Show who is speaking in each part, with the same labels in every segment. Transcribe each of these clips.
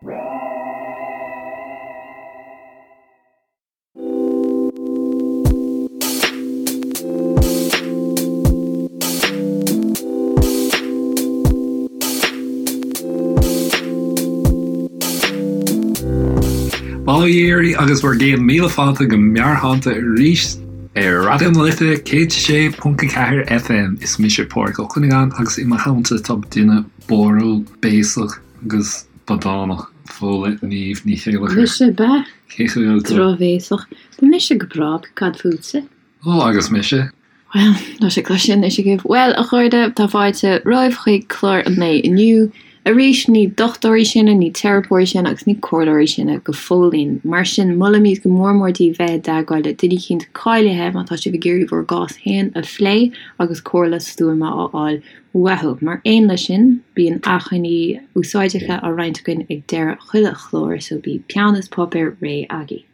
Speaker 1: Bail ó Dhia oraibh agus bhur gcéad míle fáilte go Meabhairshláinte arís ar Raidió na Life 106.4 FM. Is mise Pádraig Ó Cuinneagáin agus i mo theannta tá duine báúil, béasach agus bodánach, Fódhla Niamh Ní Chéilleachair.
Speaker 2: Mise bea.
Speaker 1: Cén chaoi a bhfuil tú?
Speaker 2: Drochbhéasach. Tá mise go breá, cad fútsa?
Speaker 1: Ó, agus mise?
Speaker 2: Bhuel, tá sé cloiste anois agaibh. Bhuel, a chairde, tá fáilte romhaibh chuig clár an lae inniu. Arís, ní dochtúirí sinne, ní teiripeoirí sinne agus ní comhairleoirí sinne go fóillín. Mar sin, molaimid go mór mór daoibh bheith i dteagmháil le duine eicínt cáilithe má tá sibh ag iarraidh bhur gcás féin a phlé agus comhairle stuama a fháil uathu. Mar aon leis sin, bíonn acmhainní úsáideacha á roinnt againn ag deireadh chuile chlár, so bíodh peann is páipéar réidh agaibh.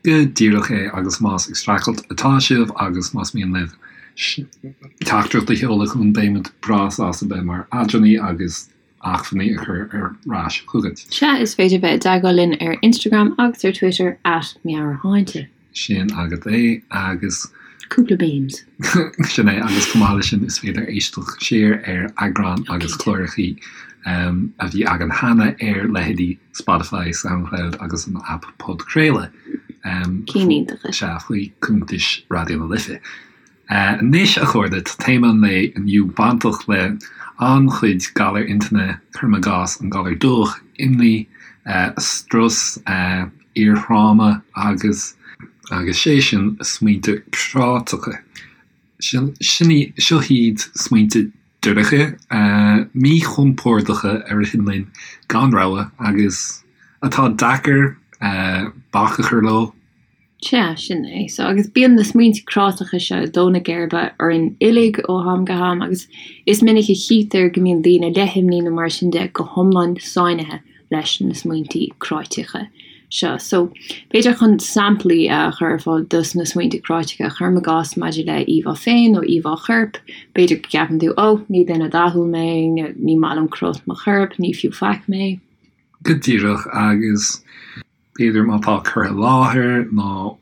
Speaker 1: Go díreach é, agus más ag streachailt atá sibh agus más mian libh teachtaireacht a sheoladh chugainn, beimid breá sásta bheith mar eadránaí agus acmhainní a chur ar ais chugat.
Speaker 2: Sea, is féidir bheith i dteagmháil linn ar Instagram agus ar Twitter at Meabhairshláinte.
Speaker 1: Sin agat é, agus.
Speaker 2: Cúpla memes.
Speaker 1: Sin é, agus chomh maith leis sin is féidir éisteacht siar ar eagráin agus clárachaí a bhí againn cheana ar leithéidí Spotify, Soundcloud agus an aip podchraoladh.
Speaker 2: Cinn iontacha.
Speaker 1: Sea, faoi cuntais Raidió na Life. Anois, a chairde, tá téama an lae inniu bainteach le an-chuid galar intinne, cuirim i gcás, an galar dubhach, imní, strus, iarthráma agus, agus sé sin, smaointe cráiteacha. Sin, seo iad smaointe dorcha, míchompordacha a ritheann linn gan rogha agus atá deacair bac a chur leo.
Speaker 2: Sea, sin é. So, agus bíonn na smaointe cráiteacha seo ag dó na geirbe orainn uilig ó am go ham agus is minic a chítear go mbíonn daoine le himní nó mar sin de go hiomlán sáinnithe leis na smaointe cráiteacha seo. So, b'fhéidir chun samplaí a chur ar fáil dos na smaointe cráiteacha, cuirim i gcás maidir le íomhá féin nó íomhá choirp, b'fhéidir go gceapann tú, oh, ní duine dathúil mé, ní maith liom cruth mo choirp, ní fiú faic mé.
Speaker 1: Go díreach, agus. B'fhéidir má tá cur i láthair nó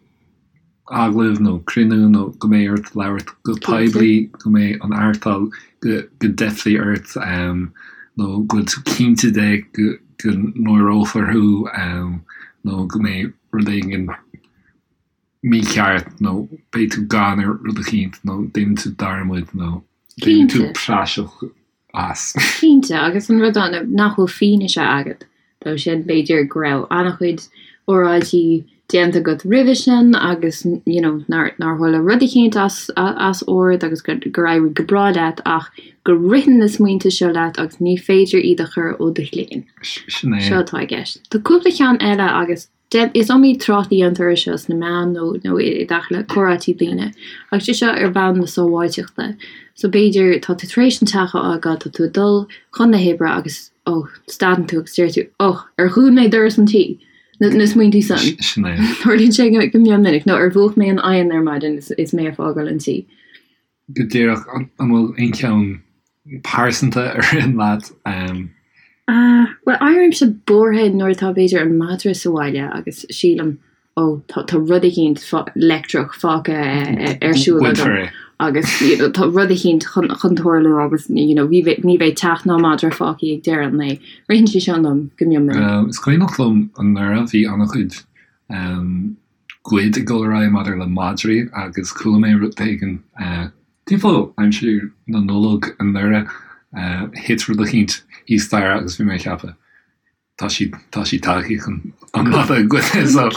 Speaker 1: agallamh nó cruinniú nó go mbeidh ort labhairt go poiblí, go mbeidh an artal, go dteipfidh ort nó go bhfuil tú cinnte de go náireofar thú nó go mbeidh rud éigin mícheart nó beidh tú gann ar rud eicínt nó déanann tú dearmad nó déanann tú praiseach as.
Speaker 2: Cinnte, agus an rud ann nach bhfuil fianaise agat dó sin, b'fhéidir go raibh an-chuid óráidí déanta agat roimhe sin agus you know nár nár tharla rud eicínt as as ord agus gur gur éirigh go breá leat ach go ritheann na smaointe seo leat agus ní féidir iad a chur ó do chloigeann.
Speaker 1: Sin é.
Speaker 2: Seo atá i gceist. Tá cúpla ceann eile agus Is iomaí trácht a dhéantar air seo sna meáin nó nó i dtaca le comhráití daoine, agus sé seo ar bhonn na sábháilteachta. So b'fhéidir tá tú tar éis an teach a fhágáil, tá tú ag dul chun na hoibre agus oh, stadann tú agus deir tú oh, ar dhún mé doras an tí? Na, na smaointí san.
Speaker 1: Sin é.
Speaker 2: Tarlaíonn sé go, go mion minic, nó ar mhúch mé an oigheann ar maidin is, is mé ag fágáil an tí?
Speaker 1: Go díreach, an bhfuil aon cheann pearsanta a ritheann leat?
Speaker 2: Bhuel, éirímse buartha nuair atá b'fhéidir an madra sa bhaile agus sílim, ó, tá tá rud eicínt leictreach fágtha ar siúl agam agus you know tá rud eicínt chun chun tarlú agus you know ní bheidh ní bheidh teach ná madra fágtha ag deireadh an lae. Ritheann sé seo liom go mion
Speaker 1: minic. Is cuimhneach liom anuraidh bhí an-chuid goid ag dul ar aghaidh maidir le madraí agus chuala mé rud éigin timpeall aimsir na Nollag anuraidh, thit rud eicínt thíos staighre agus bhí mé ag ceapadh, tá siad, tá siad tagtha chun an madra a ghoid so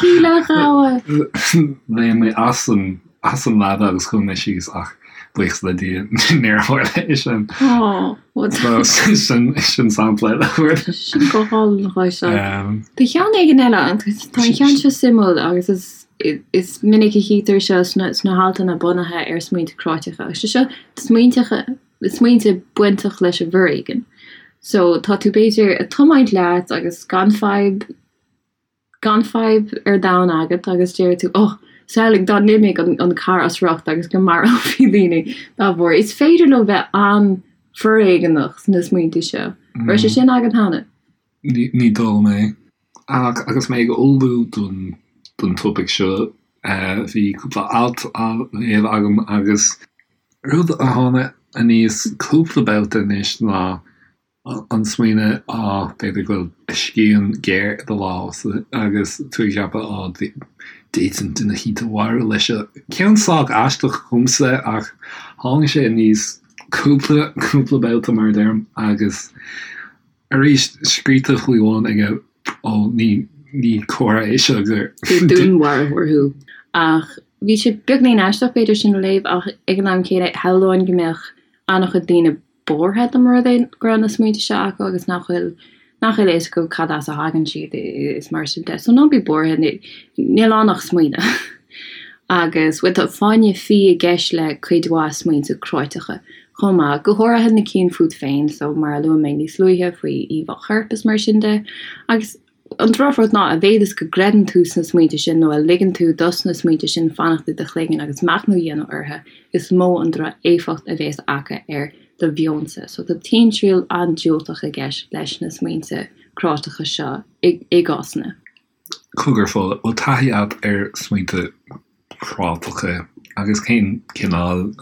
Speaker 1: léim mé as an, as an leaba agus chuaigh mé síos ach buíochas le Dia níor tharla é sin. So sin, sin sampla
Speaker 2: eile. Sin go hálainn a Tá ceann éigin eile, tá an ceann seo suimiúil agus is is minic a chítear seo sna sna haltanna bunaithe ar smaointe cráiteacha agus sé seo smaointeacha smaointe bainteach leis an bhforéigean. So tá tú b'fhéidir ag tiomáint leat agus gan fadhb gan fadhb ar domhan agat agus deir tú oh samhlaigh dá n-imeodh an an carr as riocht agus go marófaí daoine dá bharr. Is féidir leo bheith an-fhoréigeanach sna smaointe seo. Raibh sé sin agat cheana?
Speaker 1: Ní dóigh liom é. Ach agus mé ag ullmhú don don topaic seo, bhí cúpla alt á léamh agam agus rud a tháinig aníos cúpla babhta anois ná an smaoineamh, á, b'fhéidir go bhfuil scian géar i do lámh agus tú ag ceapadh, á, d'fhéadfainn duine eicínt a mharú leis seo. Ceann sách aisteach dhomsa ach tháinig sé aníos cúpla, cúpla babhta mar a deirim agus Arís, scríte faoi bhun aige, ó, ní, ní comhartha é seo gur.
Speaker 2: gur dúnmharfóir thú. Ach bhí sé beagainín aisteach b'fhéidir sin a léamh ach ag an am céanna shamhlóinn go mbeadh an-chuid daoine buartha dá mba rud é go raibh na smaointe seo acu agus nach bhfuil nach bhfuil a fhios acu cad as a thagann siad is mar sin de. So ná bí buartha, níl ann ach smaoineamh. Agus bhuel tá fáinne fí i gceist le cuid mhaith smaointe cráiteacha chomh maith, go háirithe na cinn fút féin, so mar a luaigh mé níos luaithe faoi íomhá choirp is mar sin de. Agus an drochrud ná, a mhéad is go gcreideann tú sna smaointe sin nó a ligeann tú dos na smaointe sin fanacht i do chloigeann agus machnamh a dhéanamh orthu, is mó an droch-éifeacht a bhéas acu ar do mheonsa. So tá timthriall an-diúltach i gceist leis na smaointe cráiteacha seo i gcásanna.
Speaker 1: Cogar, Fódhla, bhfuil taithí agat ar smaointe cráiteacha agus cén cineál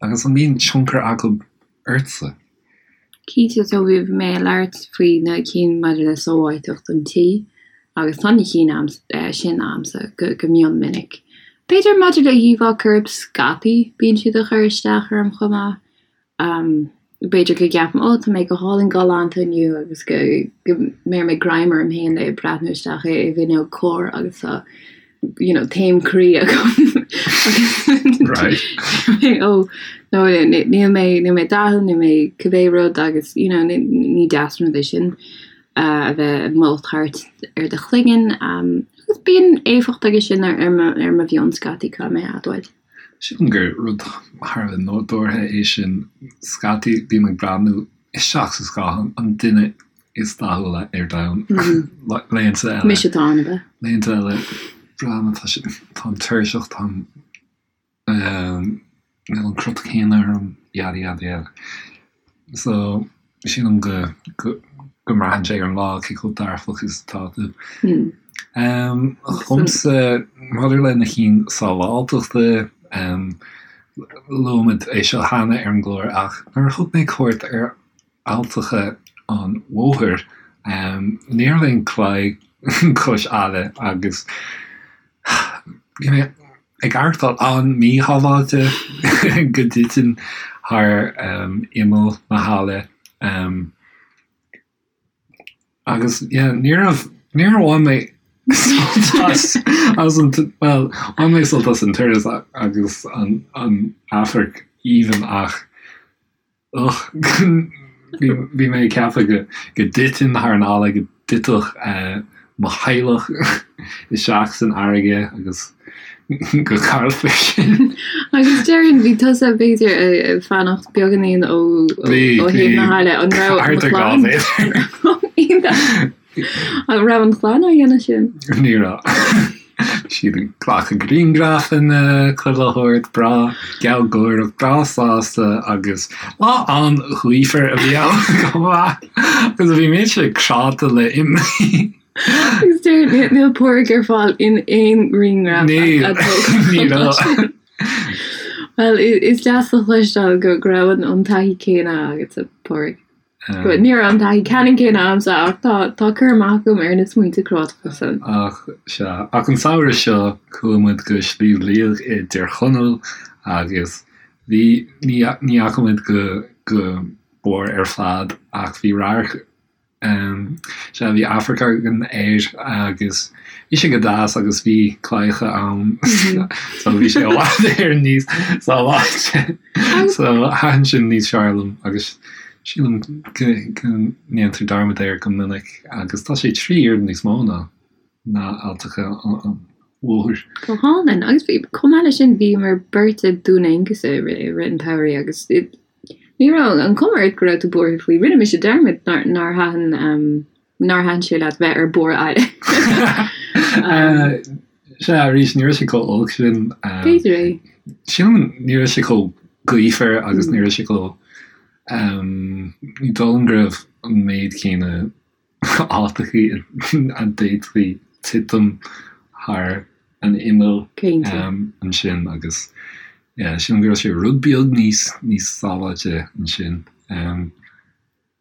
Speaker 1: agus an mbíonn tionchar acu ortsa?
Speaker 2: Cinnte, so bhí mé ag labhairt faoi na cinn maidir le sábháilteacht an tí agus tá na cinn sin a'msa go mion minic. B'fhéidir maidir le híomhá coirp scaití bíonn siad ag cur isteach orm chomh maith. B'fhéidir go gceapaim, 'Ó, tá mé go hálainn galánta inniu' agus go mbeir mé greim orm féin le breathnú isteach i bhfuinneog cairr agus tá you know taom croí agam
Speaker 1: agus
Speaker 2: ó nó níl mé níl mé dathúil, níl mé cibé rud agus you know ní deas an rud é sin a bheith ag moladh thart ar do chloigeann agus bíonn éifeacht aige sin ar mo ar mo mheon scaití caithfidh mé a admháil.
Speaker 1: Sílim gur rud thar a bheith nádúrtha é sin. Scaití bím ag breathnú isteach sa scáthán, an duine is dathúla ar domhan. Laethanta eile.
Speaker 2: Mise atá ann, ab
Speaker 1: ea? Laethanta eile, breathnaím, tá sé, táim tuirseach, táim, níl an crot céanna orm, yada yada yada. So, sílim go, go, go mbraitheann sé ar an lá cé chomh dearfach is atá tú. Dhomsa, maidir le na cinn sábháilteachta, luaigh muid é seo cheana ar an gclár ach nuair a thug mé cuairt ar Alltacha an Mhothair, ní raibh aon claí cois aille agus bhí mé ag aireachtáil an-mhíshábháilte go dtitfinn thar imeall na haille. Agus yeah, ní raibh, níor bhain mé sult as, as an, bhuel, bhain mé sult as an turas agus an, an amharc aoibhinn ach Ugh, bhí mé ag ceapadh go dtitfinn thar an fhalla, go dtitfeadh mo theaghlach isteach san fharraige agus go gcaillfí sinn.
Speaker 2: Agus déarfainn, bhí tusa b'fhéidir ag fanacht beagáinín ó thaobh na haille, an raibh an chlann? An raibh an chlann á dhéanamh sin?
Speaker 1: Ní raibh. Bhí siad ag glacadh grianghrafanna, chuile shórt, breá gealgháireach, breá sásta agus lá an-ghaofar a bhí ann chomh maith agus bhí mise cráite le
Speaker 2: imní. Agus deir níl Pádraig ar fáil in aon ghrianghraf
Speaker 1: a tógadh. Ní raibh.
Speaker 2: Bhuel, is deas a chloisteáil go raibh an taithí céanna agatsa, a Phádraig. Ní raibh an taithí ceannann céanna agamsa ach tá tá cur amach agam ar na smaointe cráiteacha
Speaker 1: san. Ach sea, ach an samhradh seo chuaigh muid go Sliabh Liag i dTír Chonaill agus bhí, ní ní fhaca muid go go barr ar fad ach bhí radharc Sea, bhí amharc againn air agus bhí sé go deas agus bhí claíocha ann so bhí sé i bhfad Éireann níos sábháilte. So thaitin sin níos fearr liom agus sílim go ndéantar dearmad air go minic agus tá sé 3 oiread níos mó ná ná Alltacha an Mhothair.
Speaker 2: Go hálainn. Agus chomh maith leis sin bhíomar beirt i Dún Aonghasa i rith an tsamhraidh agus ní raibh an chuma ort go raibh tú buartha faoi. Rinne mise dearmad nár thaitin nár thaitin sé leat bheith ar barr aille.
Speaker 1: Sea, arís, ní raibh sé chomh olc sin.
Speaker 2: B'fhéidir é.
Speaker 1: Sílim ní raibh sé chomh gaofar agus ní raibh sé chomh, ní dóigh liom go raibh an méid céanna. áiteachaí a d'fhéadfaí titim thar an imeall ansin agus yeah sílim go raibh sé rud beag níos níos sábháilte ansin.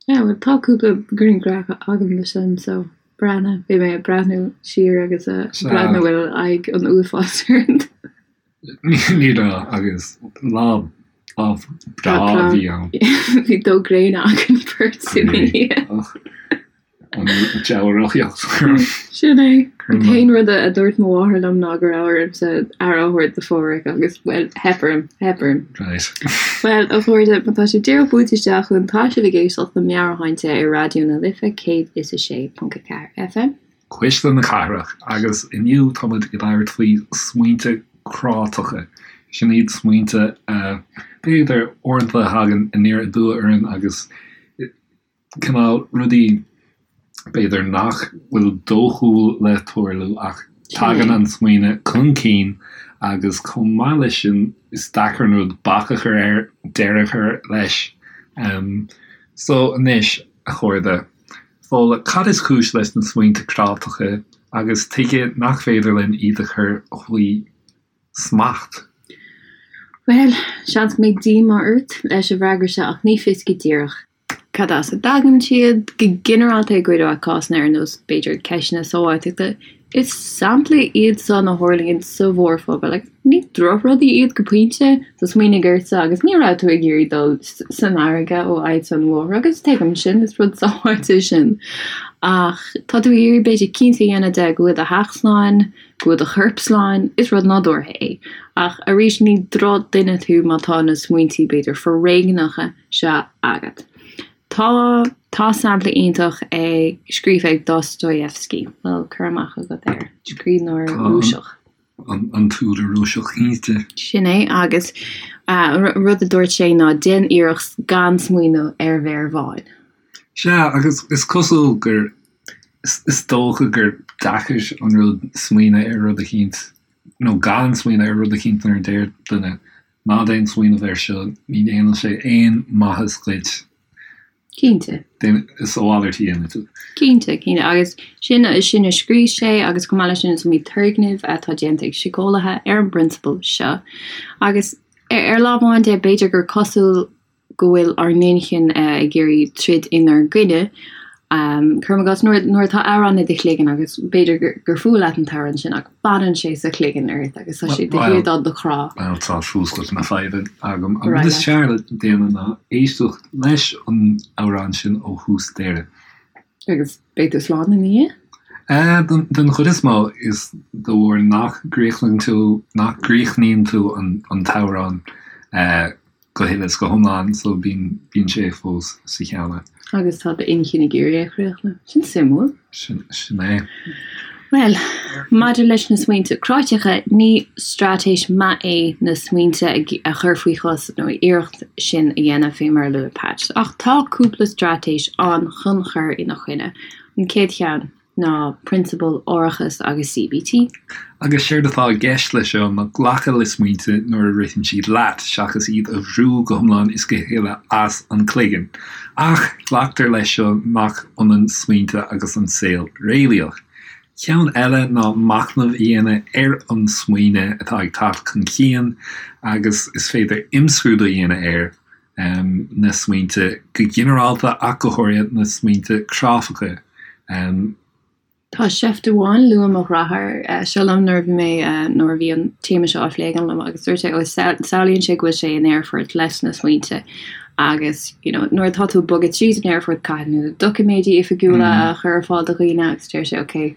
Speaker 2: Yeah bhuel tá cúpla grianghraf agam de sin so breathnaigh, bhí mé ag breathnú siar agus ag breathnú bhfuil aghaidh an uafáis orm.
Speaker 1: Ní raibh agus lá lá breá a bhí ann.
Speaker 2: Bhí dó gréine againn beirt ina dhiaidh.
Speaker 1: An deabhóideacht.
Speaker 2: Sin é. An t-aon rud a dúirt mo mháthair liom ná go raibh ormsa aire a thabhairt do Phádhraic agus, bhuel, theip orm, theip orm.
Speaker 1: Right.
Speaker 2: Bhuel, a chairde, má tá sibh díreach buailte isteach chugainn, tá sibh ag éisteacht le Meabhairshláinte ar Raidió na Life 106.4 FM.
Speaker 1: Cuisle na Cathrach, agus inniu tá muid ag labhairt faoi smaointe cráiteacha. Sin iad smaointe a, b'fhéidir, uaireanta a thagann aniar aduaidh orainn agus cineál rudaí b'fhéidir nach bhfuil dóchúil le tarlú ach tagann an smaoineamh chun cinn agus chomh maith leis sin is deacair an rud bac a chur air, deireadh a chur leis. So anois, a chairde, Fódhla, cad is cúis leis na smaointe cráiteacha agus tuige nach féidir linn iad a chur faoi smacht?
Speaker 2: Bhuel, seans go mbeidh díomá ort leis an bhfreagra seo ach ní fios go díreach cad as a dtagann siad. Go ginearálta i gcuid mhaith cásanna ar nós, b'fhéidir, ceisteanna sábháilteachta, is samplaí iad san a tharlaíonn sa mhórphobal agus ní drochrudaí iad go pointe. So smaoinigh ortsa agus ní raibh tú ag iarraidh dul san fharraige ó fhad an bhóthair agus tuigim sin, is rud sábháilte sin. Ach tá tú ag iarraidh b'fhéidir cinnte a dhéanamh de go bhfuil do theach slán, go bhfuil do chorp slán, is rud nádúrtha é. Ach arís, ní drochdhuine tú má tá na smaointí, b'fhéidir, foréigneacha seo agat. Tá, tá sampla iontach ag, scríofa ag Dostoyevsky, bhfuil cur amach agat air? Scríbhneoir Rúiseach.
Speaker 1: An, an t-údar Rúiseach, cinnte.
Speaker 2: Sin é, agus rud a dúirt sé ná déan iarracht gan smaoineamh ar mhéar bhán.
Speaker 1: Sea, agus is cosúil gur, is dócha gur deacair an rud smaoineamh ar rud eicínt, nó gan smaoineamh ar rud eicínt nuair a deir duine, ná déan smaoineamh air seo, ní dhéanann sé aon maitheas dhuit.
Speaker 2: Cinnte.
Speaker 1: Is a mhalairt a dhéanfaidh tú.
Speaker 2: Cinnte, cinnte. Agus sin, sin a scríobh sé agus chomh maith leis sin is iomaí turgnamh atá déanta ag síceolaithe ar an bprionsabal seo. Agus ar lámh amháin de, b'fhéidir gur cosúil go bhfuil ár n-inchinn ag iarraidh troid inár gcoinne. Cuirim i gcás, nuair nuair atá amhrán i do chloigeann agus b'fhéidir gur fuath leat an t-amhrán sin ach fanann sé sa chloigeann ort agus tá sé de shíor do do chrá.
Speaker 1: Bhuel, tá fuascailt na faidhbe agam. An rud is fearr le déanamh ná éisteacht leis an amhrán sin ó thús deireadh.
Speaker 2: Agus beidh tú slán ina dhiaidh?
Speaker 1: Den chuid is mó, is de bharr nach gcríochnaíonn tú, nach gcríochnaíonn tú an t-amhrán go huile is go hiomlán so bíonn, bíonn sé fós sa cheann
Speaker 2: agat. Agus tá d'inchinn ag iarraidh é a chríochnú. Sin suimiúil.
Speaker 1: Sin, sin é.
Speaker 2: Bhuel, maidir leis na smaointe cráiteacha, ní straitéis maith é na smaointe a chur faoi chois nó iarracht sin a dhéanamh fé mar a luaigh Pat. Ach tá cúpla straitéis ann chun cur ina choinne. An chéad cheann. ná prionsabail árachas agus CBT.
Speaker 1: Agus séard atá i gceist leis seo ná glacadh le smaointe nuair a ritheann siad leat, seachas iad a bhrú go hiomlán is go huile as an cloigeann. Ach glactar leis seo nach ionann smaointe agus an saol réalaíoch. Ceann eile ná machnamh a dhéanamh ar an smaoineamh atá ag teacht chun cinn agus is féidir imscrúdú a dhéanamh air. na smaointe go ginearálta ach go háirithe na smaointe cráifeacha.
Speaker 2: Tá seift amháin, luaigh mo dheartháir seo liom nuair a bhí mé, nuair a bhí an téama seo á phlé agam liom agus dúirt sé, ó samhlaíonn sé go bhfuil sé in aerfort leis na smaointe agus you know nuair atá tú ag bogadh tríd an aerfort caithfidh tú na doiciméidí oifigiúla a chur ar fáil do dhaoine agus deir sé ok,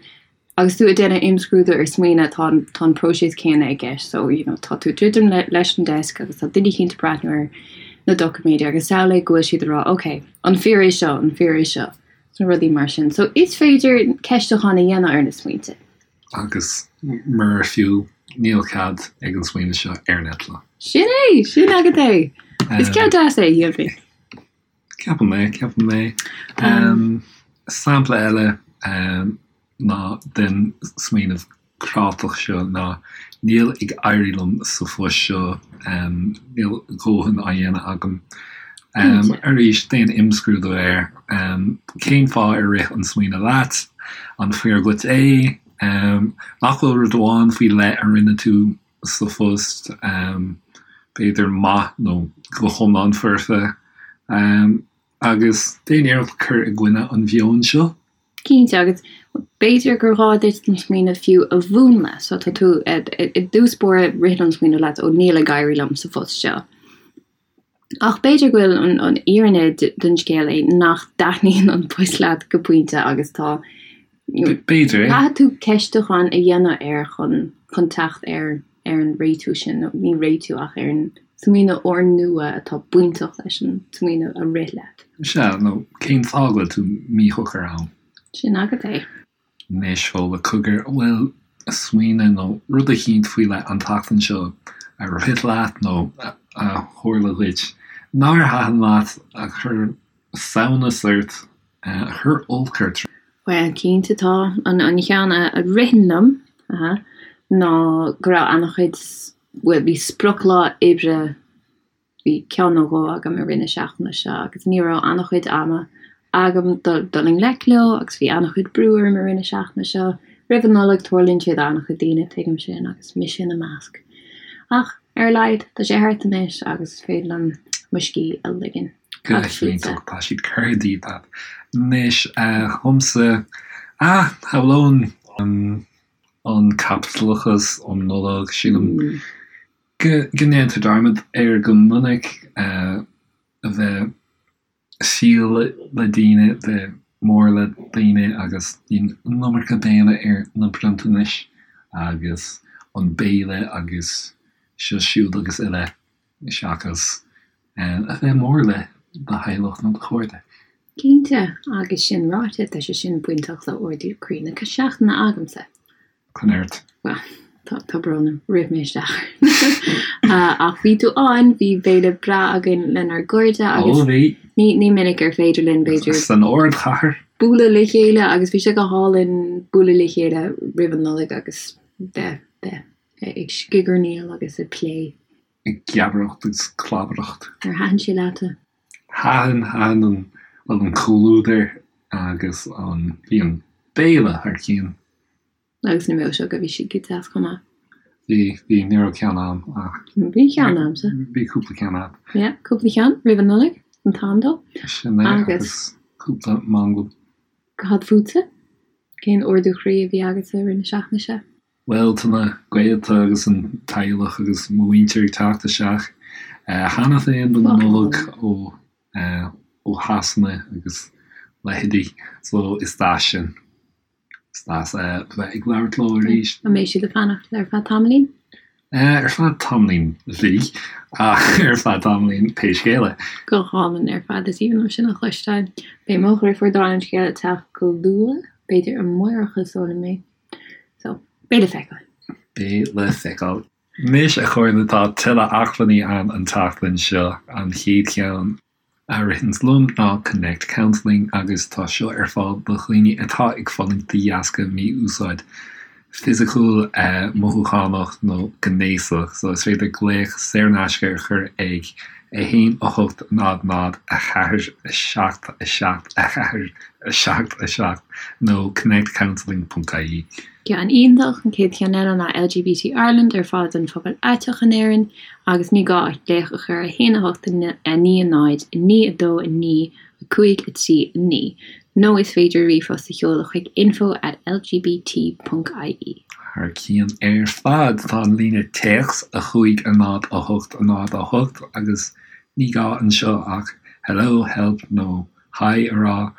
Speaker 2: Agus tú ag déanamh imscrúdú ar smaoineamh, tá an, tá an próiseas céanna i gceist. So, you know, tá tú ag druidim le, leis an desk agus tá duine eicínt ag breathnú ar na doiciméid agus samhlaigh go bhfuil siad ag rá, ok, an fíor é seo, an fíor é seo, nó rudaí mar sin. So, is féidir ceistiúchán a dhéanamh ar na smaointe.
Speaker 1: Agus murar fiú, níl cead ag an smaoineamh seo ar an eitleán.
Speaker 2: Sin é! Sin agat é! Is ceann deas é, shílfinn.
Speaker 1: Ceapaim é, ceapaim é. Sampla eile ná den smaoineamh cráiteach seo ná níl ag éirí liom sa phost seo, níl a dhóthain á dhéanamh agam. Arís, déan imscrúdú air. Cén fáth ar rith an smaoineamh leat? An fíor dhuit é? Nach bhfuil rud amháin faoi leith a rinne tú sa phost, b'fhéidir maith nó go hiomlán foirfe? Agus déan iarracht cur i gcoinne an mheoin seo.
Speaker 2: Cinnte, agus b'fhéidir gur ghá duit an smaoineamh fiú a mhúnlú. So tá tú, i dtús báire, ritheann an smaoineamh leat, ó níl ag éirí liom sa phost seo. Ach b'fhéidir go bhfuil an fhírinne den scéal é nach dtaitníonn an post leat go pointe agus tá,
Speaker 1: B'fhéidir é.
Speaker 2: Caithfidh tú ceistiúchán a dhéanamh air chun chun teacht ar ar an réitiú sin, nó ní réitiú ach ar an smaoineamh úrnua atá bainteach leis an smaoineamh a rith leat.
Speaker 1: Sea, nó cén fáth go bhfuil tú míshocair ann?
Speaker 2: Sin agat é.
Speaker 1: Anois, Fódhla, cogar, an bhfuil smaoineamh nó rud eicínt faoi leith an tseachtain seo a rith leat nó a tharla dhuit nár thaitin leat, a chuir samhnas ort, a chuir olc ort?
Speaker 2: Bhuel, cinnte tá. An cheann a ritheann liom ná go raibh an-chuid, bhuel, bhí sprioclá oibre Bhí ceann nó dhó agam i rith na seachtaine seo agus ní raibh an-chuid ama agam dul i ngleic leo agus bhí an-chuid brú orm i rith na seachtaine seo. Roimh an Nollaig, tarlaíonn sé d'an-chuid daoine, tuigim sin, agus mise ina measc. Ach, ar a laghad, tá sé thart anois agus is féidir liom mo scíth a ligean.
Speaker 1: Go hiontach, tá siad curtha díot agat. Anois, dhomsa, ah, shamhlóinn an caipitleachas um Nollaig, sílim go ndéantar dearmad air go minic, a bheith fial le daoine, bheith mór le daoine agus bíonn an iomarca béime ar na bronntanais agus an béile agus seo siúd agus uile seachas a bheith mór le do theaghlach nó do chairde.
Speaker 2: Cinnte, agus sin ráite, tá sé sin bainteach le ardú croí na seachtaine agamsa.
Speaker 1: Coinéart.
Speaker 2: Bhuel, tá, tá brón orm, rith mé isteach air. Ach bhí tú ann, bhí béile breá againn lenár gcairde agus
Speaker 1: Ó, bhí.
Speaker 2: ní, ní minic ar féidir linn, b'fhéidir,
Speaker 1: San ardchathair.
Speaker 2: bualadh le chéile agus bhí sé go hálainn bualadh le chéile roimh an Nollaig agus bheith, bheith ag scigairníl agus ag plé.
Speaker 1: Ag geabaireacht agus clabaireacht.
Speaker 2: Ar thaitin sé leatsa?
Speaker 1: Thaitin, thaitin an, an comhluadar agus an, bhí an béile thar cionn.
Speaker 2: Agus na milseoga, bhí siad go deas chomh maith.
Speaker 1: Bhí, bhí, ní raibh ceann a'm ach.
Speaker 2: Bhí ceann a'msa.
Speaker 1: Bhí cúpla ceann a'd.
Speaker 2: Yeah, cúpla ceann roimh an Nollaig, an t-am dó.
Speaker 1: Sin é, agus cúpla manglam.
Speaker 2: Cad fútsa? Cén ardú croí a bhí agatsa i rith na seachtaine seo?
Speaker 1: Bhuel, tá na gaolta agus an teaghlach agus mo mhuintir ag teacht isteach cheana féin don Nollaig ó ó Shasana agus leithéidí, so is deas sin. Is deas a bheith ag labhairt leo arís.
Speaker 2: An mbeidh siad ag fanacht ar feadh tamaillín?
Speaker 1: Ar feadh tamaillín bhí, ach ar feadh tamaillín pé scéal é.
Speaker 2: Go hálainn ar fad, is aoibhinn liom sin a chloisteáil. Beidh mo dheirfiúr dála an scéil ag teacht go luath, b'fhéidir amárach is dóigh liom é. So, beidh le feiceáil.
Speaker 1: Beidh le feiceáil. Anois, a chairde, tá tuilleadh acmhainní ann an tseachtain seo. An chéad cheann. a ritheanns liom ná Connect Counselling agus tá seo ar fáil do dhaoine atá ag fulaingt de dheasca mí-úsáid fisiciúil, mothúchánach nó gnéasach. So is féidir glaoch saor in aisce a chur ag 1 8 0 0 4 7 7 4 7 7 nó connectcounselling.ie.
Speaker 2: Ceann iontach, an chéad cheann eile ná LGBT Ireland ar fáil don phobal aiteach in Éirinn agus ní gá ach glaoch a chur ar 1 8 9 0 9 2 9 5 3 9 nó is féidir ríomhphost a sheoladh chuig info at lgbt ponc ie.
Speaker 1: Thar cionn ar fad, tá an líne téacs 5 0 8 0 8 agus ní gá anseo ach hello, help nó hi a rá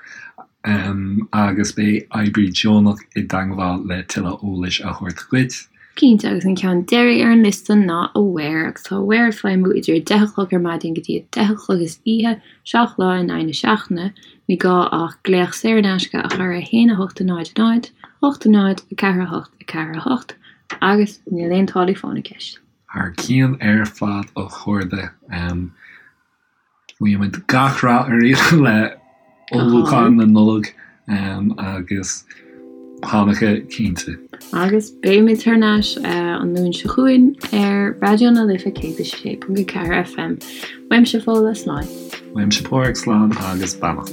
Speaker 1: agus beidh oibrí deonach i dteangmháil le tuilleadh eolais a thabhairt dhuit.
Speaker 2: Cinnte, agus an ceann deiridh ar an liosta ná Aware, agus tá Aware ag feidhmiú idir 10 a chlog ar maidin go dtí 10 a chlog istoíche, 7 lá in aghaidh na seachtaine. Ní gá ach glaoch saor in aisce a chur ar 1 8 0 0 8 0 4 8 4 8 agus níl aon táillí fóin i gceist.
Speaker 1: Thar cionn ar fad a chairde. Guímid gach rath oraibh le ullmhúchán na Nollag agus Hanukkah cinnte.
Speaker 2: Agus beimid thar n-ais an Luan seo chugainn ar Raidió na Life 106.4 FM. Uaimse Fódhla, slán.
Speaker 1: Uaimse Páraic, slán agus beannacht.